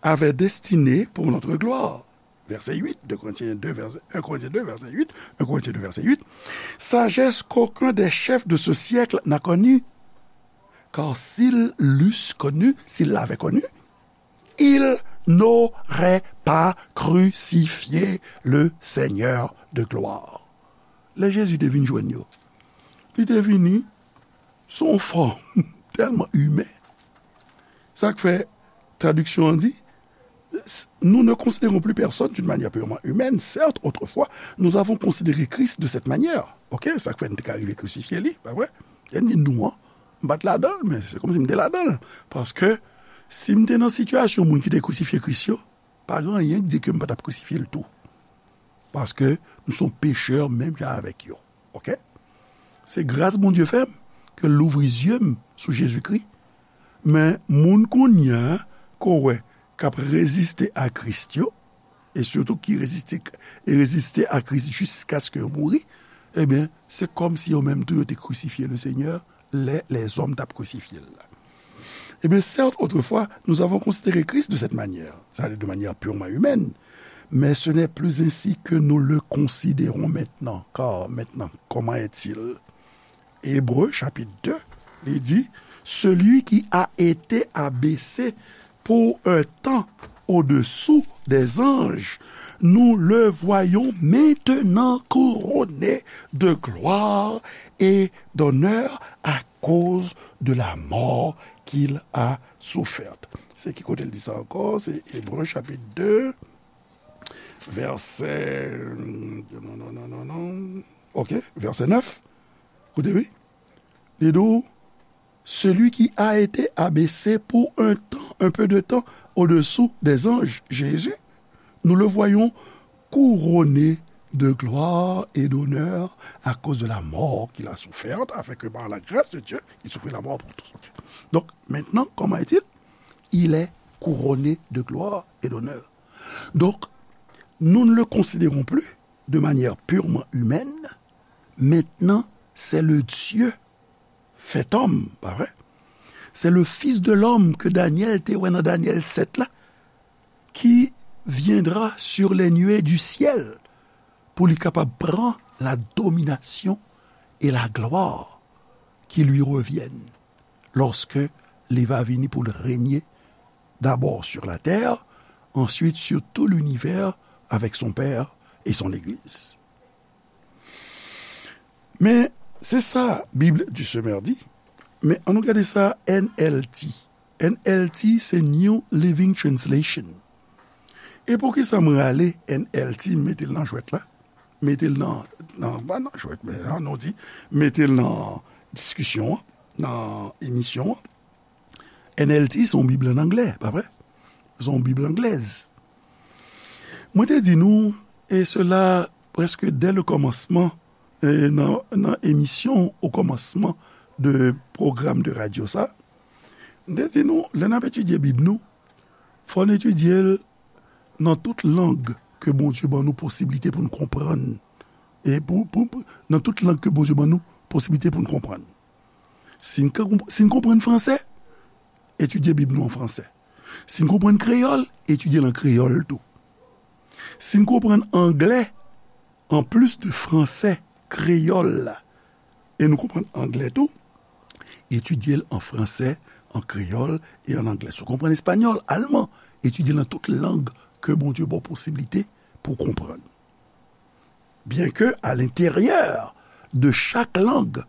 avait destinée pour notre gloire. Verset huit, deux Corinthiens deux, verset, un Corinthiens deux, verset huit, un Corinthiens deux, verset huit. Sagesse qu'aucun des chefs de ce siècle n'a connue. Car s'ils l'eussent connue, s'ils l'avaient connue, ils n'auraient pas crucifié le Seigneur de gloire. Lè Jezi te vin jwenn yo, li te vini sou yon fòm tèlman imen. Sa k fè tradiksyon an di, nous ne considérons plus personne d'une manière purement humaine. Certes, autrefois, nous avons considéré Christ de cette manière. Ok, sa k fè n te ka rive krisifye li, pa vre? Lè n di nou an, m pa t ladan l, men se kòmsi m te ladan l. Paske si m te nan sitiyasyon moun ki te krisifye Kris yo, pa gen anyen k di ke m pa t ap krisifye l tou. Paske m se yon pechè menm jan avèk yo. Ok? Se gras Bondye fè m ke l louvri zye m sou Jezikri. Men moun kounye a ke w wè k ap reziste a Kris yo, e sitou ki reziste, e reziste a Kris jiskaske yo mouri, ebyen, se kòmsi yo menm tou yo te krisifye le Senyè lè lèzòm t ap krisifye l la. Eh bien, certes, autrefois, nous avons considéré Christ de cette manière, c'est-à-dire de manière purement humaine, mais ce n'est plus ainsi que nous le considérons maintenant. Car maintenant, comment est-il? Hébreux chapitre deux, il dit, celui qui a été abaissé pour un temps au-dessous des anges, nous le voyons maintenant couronné de gloire et d'honneur à cause de la mort qu'il a soufferte. Se ki kote l di sa ankò? Se Ebre chapit de, vèsè, non, non, non, non, non. Ok, vèsè nèf. Koute, wi. Li di w, celui qui a été abaissé pour un temps, un peu de temps, au-dessous des anges, Jésus, nous le voyons couronné de gloire et d'honneur à cause de la mort qu'il a soufferte, afin que par la grâce de Dieu, il souffrit la mort pour tous. Ok. Donc, maintenant, comment est-il? Il est couronné de gloire et d'honneur. Donc, nous ne le considérons plus de manière purement humaine. Maintenant, c'est le Dieu fait homme, pa vre? C'est le Fils de l'homme que Daniel te wè nan Daniel sept la, qui viendra sur les nuées du ciel pour li kapab pran la domination et la gloire qui lui reviennent lorsque li va vini pour régner d'abord sur la terre, ensuite sur tout l'univers avec son Père et son Église. Men, se sa Bible du Semeur di. Men, ann nou gade sa N L T. N L T se New Living Translation. E poukisa m rale N L T, m mete l nan jwèt la? Mete l nan, nan, pa nan jwèt, men ann nou di, mete l nan diskisyon an, nan emisyon an. N L T se yon Bib ann anglè, pa vre? Se yon Bib anglèz. Mwen te di nou, e sela prèske dè le kòmansman, e nan, nan emisyon o kòmansman de pwogram de radyo sa, mwen te di nou, lè n ap etidye Bib nou, fò n etidye l nan tout lang ke Bondye ban nou posiblite pou n konprann. E pou, pou, pou, nan tout lang ke Bondye ban nou posiblite pou n konprann. Si n ka konp-, si n konprann fransè, etidye Bib nou an fransè. Si n konprann kreyòl, etidye l an kreyòl tou. Si n konprann anglè, anplis de fransè, kreyòl la, e nou konprann anglè tou, etidye l an fransè, an kreyòl e an anglè. Si w konprann espanyòl, alman, etidye l nan tout lang ke Bondye ba w posiblite pou w konprann. Byenke alenteryè de chak lang,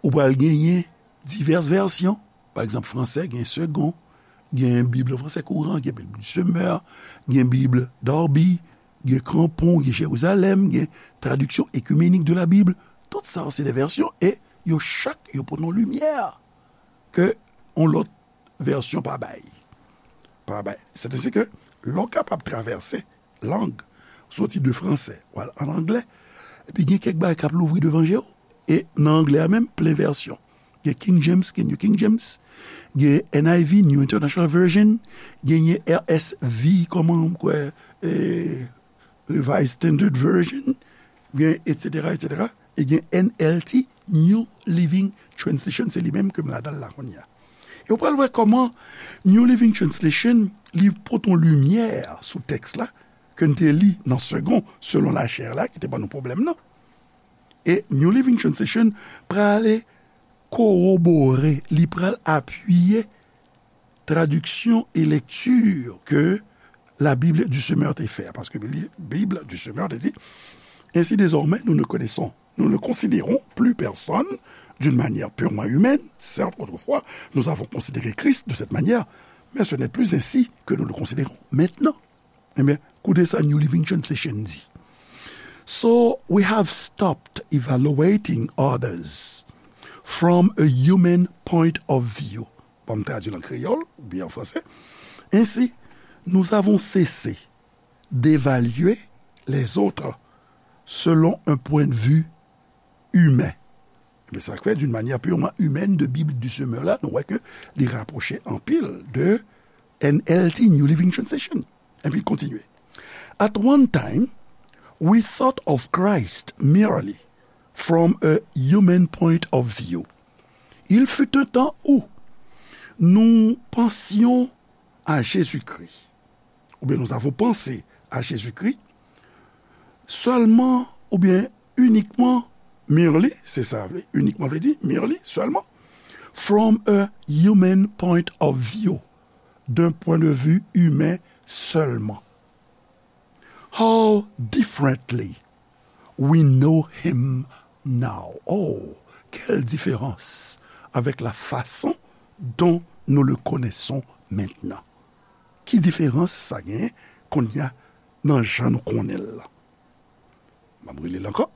ou pral genyen divès vèsyon. Pa egzanp, fransè gen Segond, gen Bib an fransè kouran, gen Bib du Semeur, gen Bib Darby, gen Crampon, gen Jérusalem, gen Traduction écuménique de la Bible. Tout sa se de vèsyon e yo chak yo pote yon limyè ke yon lòt vèsyon pa bay. Pa bay. Se te si ke lè w kapab travèse lang, soti de fransè, w al an anglè, epi gen kèk bagay k ap louvri devan je w. E nan anglè a menm, plen vèsyon. Gen King James, gen New King James, gen N I V, New International Version, genyen R S V, kòman, m kwè, eh, Revised Standard Version, gen, et cetera, et cetera, e gen N L T, New Living Translation, se li menm ke m ladan l la kounye a. E w pral wè kòman New Living Translation, li pote yon limyè sou tèks la, ke n te li nan Segond, selon lachè la, ki te ban nou pwoblèm nan. E New Living Translation prale kowobore, li pral apiye traduction et lecture que la Bible du Semeur te fè a, paske Bib du Semeur te di, Ainsi désormais, nous ne connaissons, nous ne considérons plus personne d'une manière purement humaine. Certes, autrefois, nous avons considéré Christ de cette manière, mais ce n'est plus ainsi que nous le considérons maintenant. Ebyen, koute sa New Living Translation di. So, we have stopped evaluating others from a human point of view. Bon, m tradui l an kreyòl oubyen an fransè. Ainsi, nous avons cessé d'évaluer les autres selon un point de vue humain. Ebyen, sa k fè, d'une manière purement humaine, de Bible du Semeur la, nou wè ke li rapwoche anpil de N L T, New Living Translation. Epi l kontinye. At one time, we thought of Christ merely from a human point of view. Il fut un temps où nous pensions à Jésus-Christ, ou bien nous avons pensé à Jésus-Christ, seulement, ou bien uniquement, merely, se sa vle, uniquement vle di, merely, seulement, from a human point of view, d'un point de vue humain seulement. How differently we know him now. Oh, quelle différence avec la façon dont nous le connaissons maintenant. Ki diferans sa genyen kounye a nan jan nou konnen l la? M ap rele l ankò.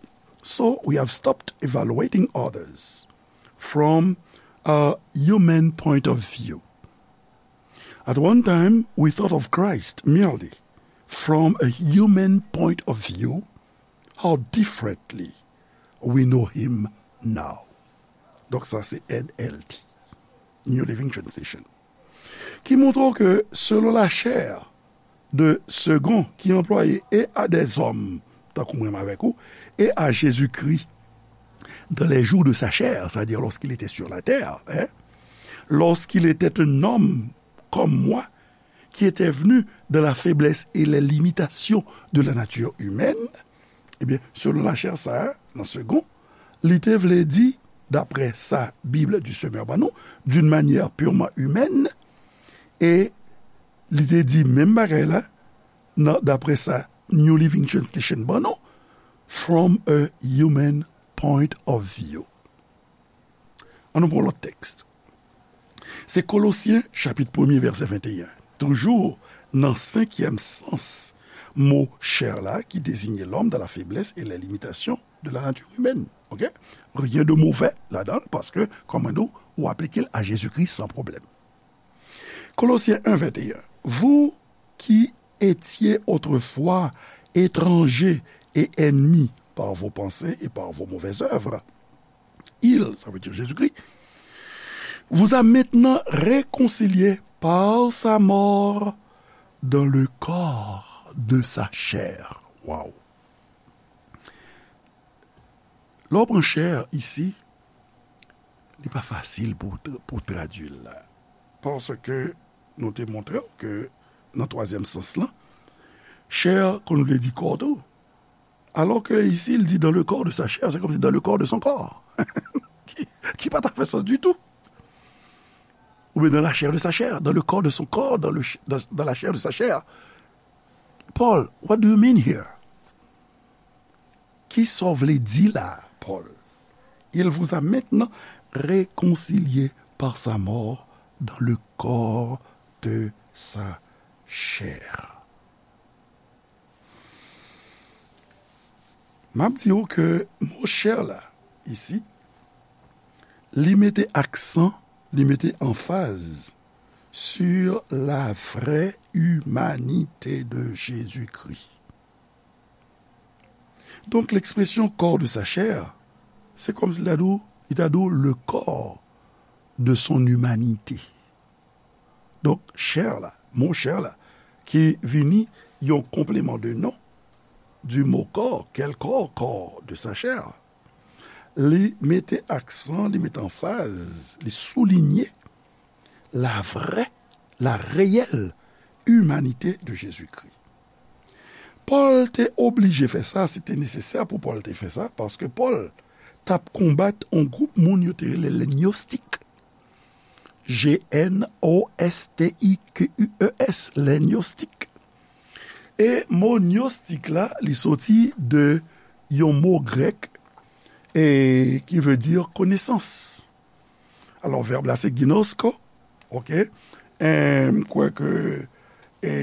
So we have stopped evaluating others from a human point of view. At one time, we thought of Christ merely from a human point of view. How differently we know him now. Donk sa se N L T, New Living Translation, ki montre w ke selon lachè de Segond ki anplwaye et à des hommes, tankou mwen avèk ou, et à Jésus-Christ dans les jours de sa chair, c'est-à-dire lorsqu'il était sur la terre, hein, lorsqu'il était un homme comme moi, qui était venu dans la faiblesse et les limitations de la nature humaine, ebyen, selon lachè sa a, nan Segond, li te vle di, daprè sa Bib du Semeur ban nou, d'une manière purement humaine, e li te di menm bagay la, nan, daprè sa New Living Translation ban nou, from a human point of view. An nou pran lòt tèks. Se Kolosyen chapit premye vèsè venteyen. Toujou nan senkyèm sans mo chair la ki désigne l'homme dans la faiblesse et les limitations de la nature humaine. Ok? Rien de mauvais ladan l, paske, kòm mwen di w, ou aplike l a Jezikri san pwoblèm. Colossiens un vingt et un. Vous qui étiez autrefois étrangers et ennemis par vos pensées et par vos mauvaises œuvres, il, ça veut dire Jésus-Christ, vous a maintenant réconciliés par sa mort dans le corps de sa chair. Wow. Lè w pran chair isi, li pa fasil pou, pou tradui l la. Paske nou te montre w ke nan twazyèm sans lan, chair konn vle di kò tou. Alò ke isi, l di dans le corps de sa chair, se kòmsi dans le corps de son corps. Ki, ki pa ta fè sans ditou. Oubyen dans la chair de sa chair, dans le corps de son corps, dans le ch-, dans, dans la chair de sa chair. Paul, what do you mean here? Kisa w vle di la, Paul? Il vous a maintenant réconciliés par sa mort dans le corps de sa chair. M ap di w ke mo chè la, isi, li mete aksan, li mete anfaz sur la vraie humanité de Jésus-Christ. Donk, lekspresyon corps de sa chair, se kòmsi li ta di w, li ta di w le corps de son humanité. Donk, chè la, mo chè la, ki vini yon complément de nom du mot corps, quel corps, corps de sa chair, li mete aksan, li mete anfaz, li soulinye la vraie, la réelle humanité de Jésus-Christ. Pòl te oblije fè sa, se te nesesè pou Pòl te fè sa, paske Pòl t ap konbat yon gwoup moun yo te rele le gnostik. G N O S T I Q U E S, les gnostiques. E mo gnostik la, li soti de yon mo grèk e ki vle di konesans. Alò, vèb la se ginosko, oke? E m kwè ke e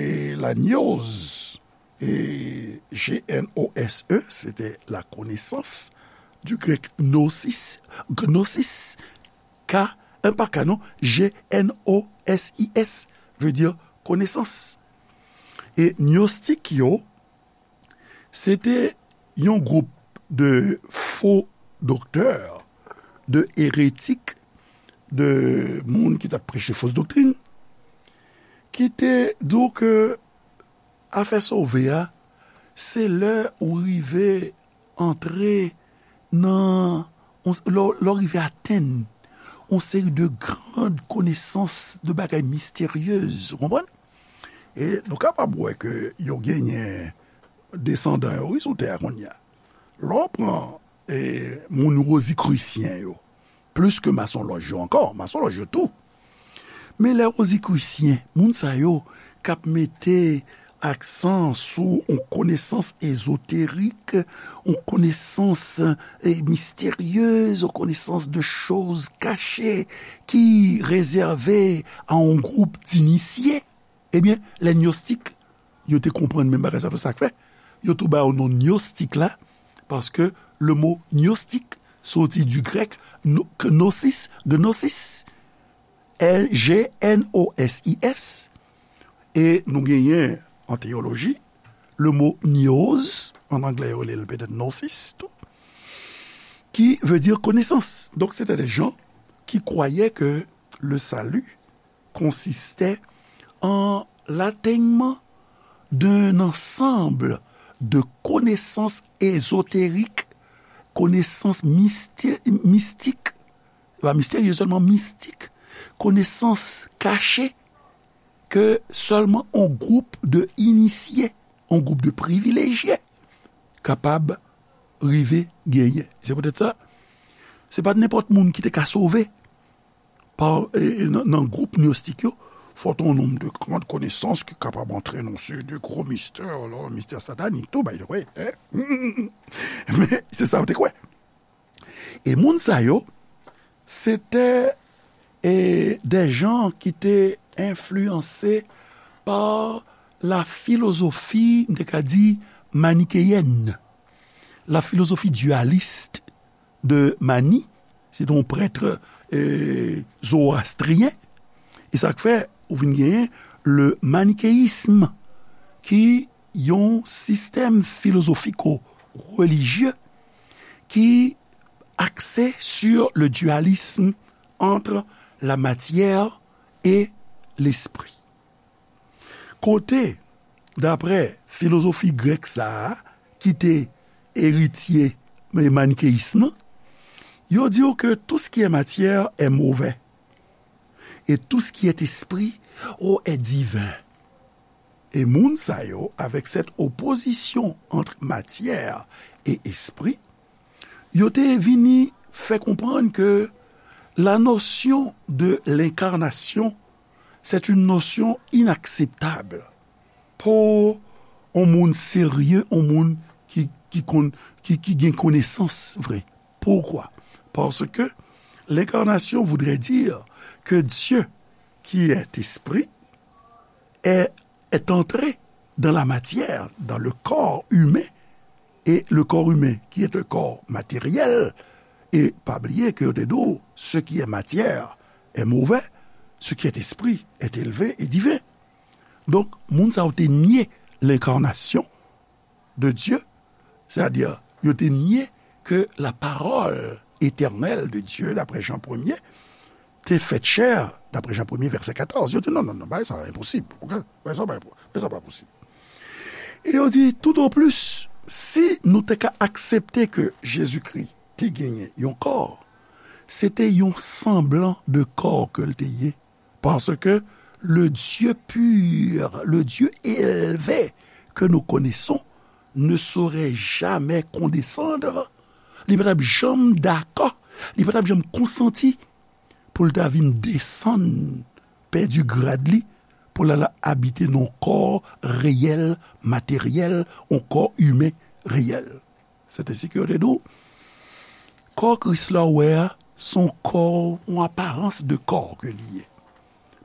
la gnoz, e G N O S E, se te la konesans, du grèk gnosis, gnosis, K, e pa K non, G N O S I S, vle di konesans. E gnostik yo, se te yon gwoup de fo doktè, de eretik, de moun ki t ap preche fos doktrin, ki te di w ke afè sove a, se lè ou rive antre nan, lè w rive atenn yon seri de gran konesans, de bagay misteryez, ou konprann? E nou kapab wè ke yo genyen desandan yo, wi, sou tè a kounye a. Lè w pran e, moun wozikrisyen yo, plis ke masonlòj yo ankò, masonlòj yo tou. Men lè wozikrisyen, moun sa yo k ap mete aksan sou yon konesans ezoterik, yon konesans e, misteryez, yon konesans de choz kache ki rezève a yon gwoup dinisye, ebyen, lè gnostik, yo te konprann menm bagay sa, sa k fè yo tou ba yo non gnostik la, paske le mo gnostik soti du grèk gnosis, gnosis, G N O S I S, e nou genyen an teyoloji, le mo gnoz, an anglè yo rele l petèt gnosis tou, ki vle di konesans. Donk, se te de jan ki kwayè ke le salut consistait en l'atteinement d'un ensemble de connaissances ésotériques, connaissances mysté- mystiques, pa misterye sèlman, mistik, konesans kache ke sèlman yon gwoup de inisye, yon gwoup de privilejye kapab rive genyen. Se poutèt sa, se pa t nenpòt moun ki te ka sove. Pa, e, e, nan, nan gwoup gnostik yo, fò t yon nonm de grand konesans ki kapab antre nan seri de gwo mistè, alò, mistè satanik tou, by the way, hein? Men se sa yo te kwè. E moun sa yo, se te, e, de jan ki te enfliyanse pa la filozofi, m te ka di, manikeyèn, la filozofi dyalis de Mani, se te yon prèt, e, zowastriyen. E sa k fè ou vin genyen le manikeyism, ki yon sistèm filozofiko-relijye ki axé sur le dualisme entre la matière et l'esprit. Kote, daprè filozofi grèk sa a, ki te eritye manikeyism nan, yo di w ke tout ce qui est matière est mauvais, et tout ce qui est esprit, oh, est divin. E moun sa yo, avec cette opposition entre matière et esprit, yo te vini fè konprann ke la notion de l'incarnation, c'est une notion inacceptable pou yon moun serye, yon moun ki, ki konn, ki, ki gen konesans vre. Pourquoi? Parce que l'incarnation voudrait dire que Dieu, qui est esprit, est, est entré dans la matière, dans le corps humain, et le corps humain, qui est un corps matériel, et pa bliye ke yo te di w, ce qui est matière est mauvais, ce qui est esprit est élevé et divin. Donk, moun sa yo te nye lenkarnasyon de Dye, sètadi, yo te nye ke la parole éternelle de Dieu, d'après Jean premier, te fèt chè, d'après Jean premier, verset quatorze. Yo di, non, non, non, bagay sa enposib. Ok? Bagay sa pa, bagay sa pa posib. E yo di, tout au plus, si nou te ka aksepte ke Jezikri te genyen yon kò, se te yon sanblan de kò ke l te ye. Parce que le Dieu pur, le Dieu élevé que nous connaissons, ne saurait jamais condescendre. Li pa t ap janm dakò, li pa t ap janm konsanti pou l ta vin desann, pèdi grad li, pou l al abite nan yon kò reyèl, materyèl, yon kò imen reyèl. Se te si ke yo te di w, kò Kris la w wè a, se yon kò, yon aparans de kò ke li ye.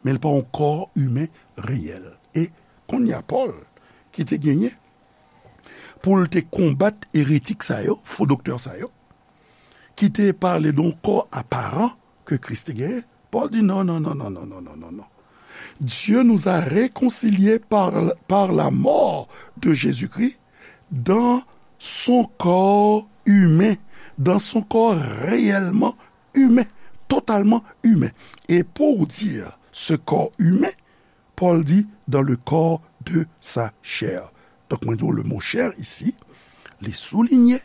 Men l pa yon kò imen reyèl. E kounye a Pòl, ki te genyen pou l te konbat eretik sa yo, fo doktè sa yo, ki te pale de yon kò aparan ke Kris te genyen, Pòl di non, non, non, non, non, non, non, non, non. Dieu nous a réconciliés par, par la mort de Jésus-Christ dans son corps humain, dans son corps réellement humain, totalement humain. Et pour dire ce corps humain, Paul dit dans le corps de sa chair. Donk, mwen di w, le mot chair isi, li soulinye,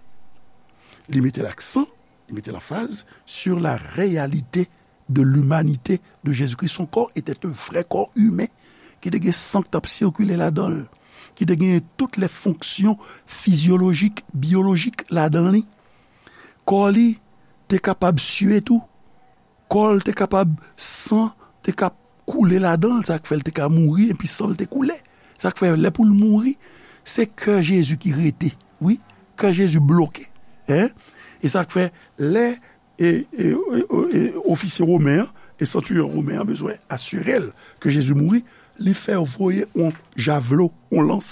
li mete laksan, li mete lanfaz sur la réalité de l'humanité de Jésus-Christ. Son corps était un vrai corps humain, ki te gen san k t ap sikile ladan l, ki te gen tout les fonctions physiologiques, biologiques ladan li. Kò li te kapab sye tou. Kò l te kapab, san te ka koule ladan l, sa k fè l te ka mouri, epi san l te koule. Sa k fè, lè pou l mouri, se kè Jezi ki rete. Wi, kè Jezi bloke. Hein? E sa k fè, lè e, e, e, e, ofisye women an, e santiriyon women an bezwen asire l ke Jezi mouri, li fè voye yon javlo, yon lans,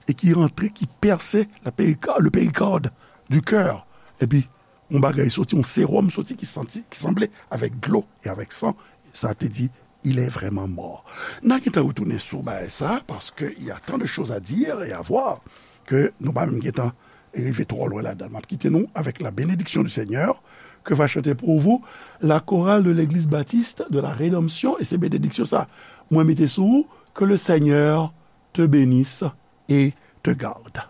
e ki rantre, ki pèse la périka-, le péricarde du cœur. Epi, yon bagay soti, yon sewòm soti ki santi, ki sanble avèk dlo e avèk san. Sa te di, il est vraiment mort. N a gentan retounen sou bagay sa, paske y a tant de choses à dire et à voir ke nou pa menm gentan rive twò lwen ladan l. M ap kite nou avec la bénédiction du Seigneur, que va chanter pour vous la chorale de l'église baptiste de la Rédemption, e se benediksyon sa mwen mete sou ou, que le Seigneur te bénisse et te garde.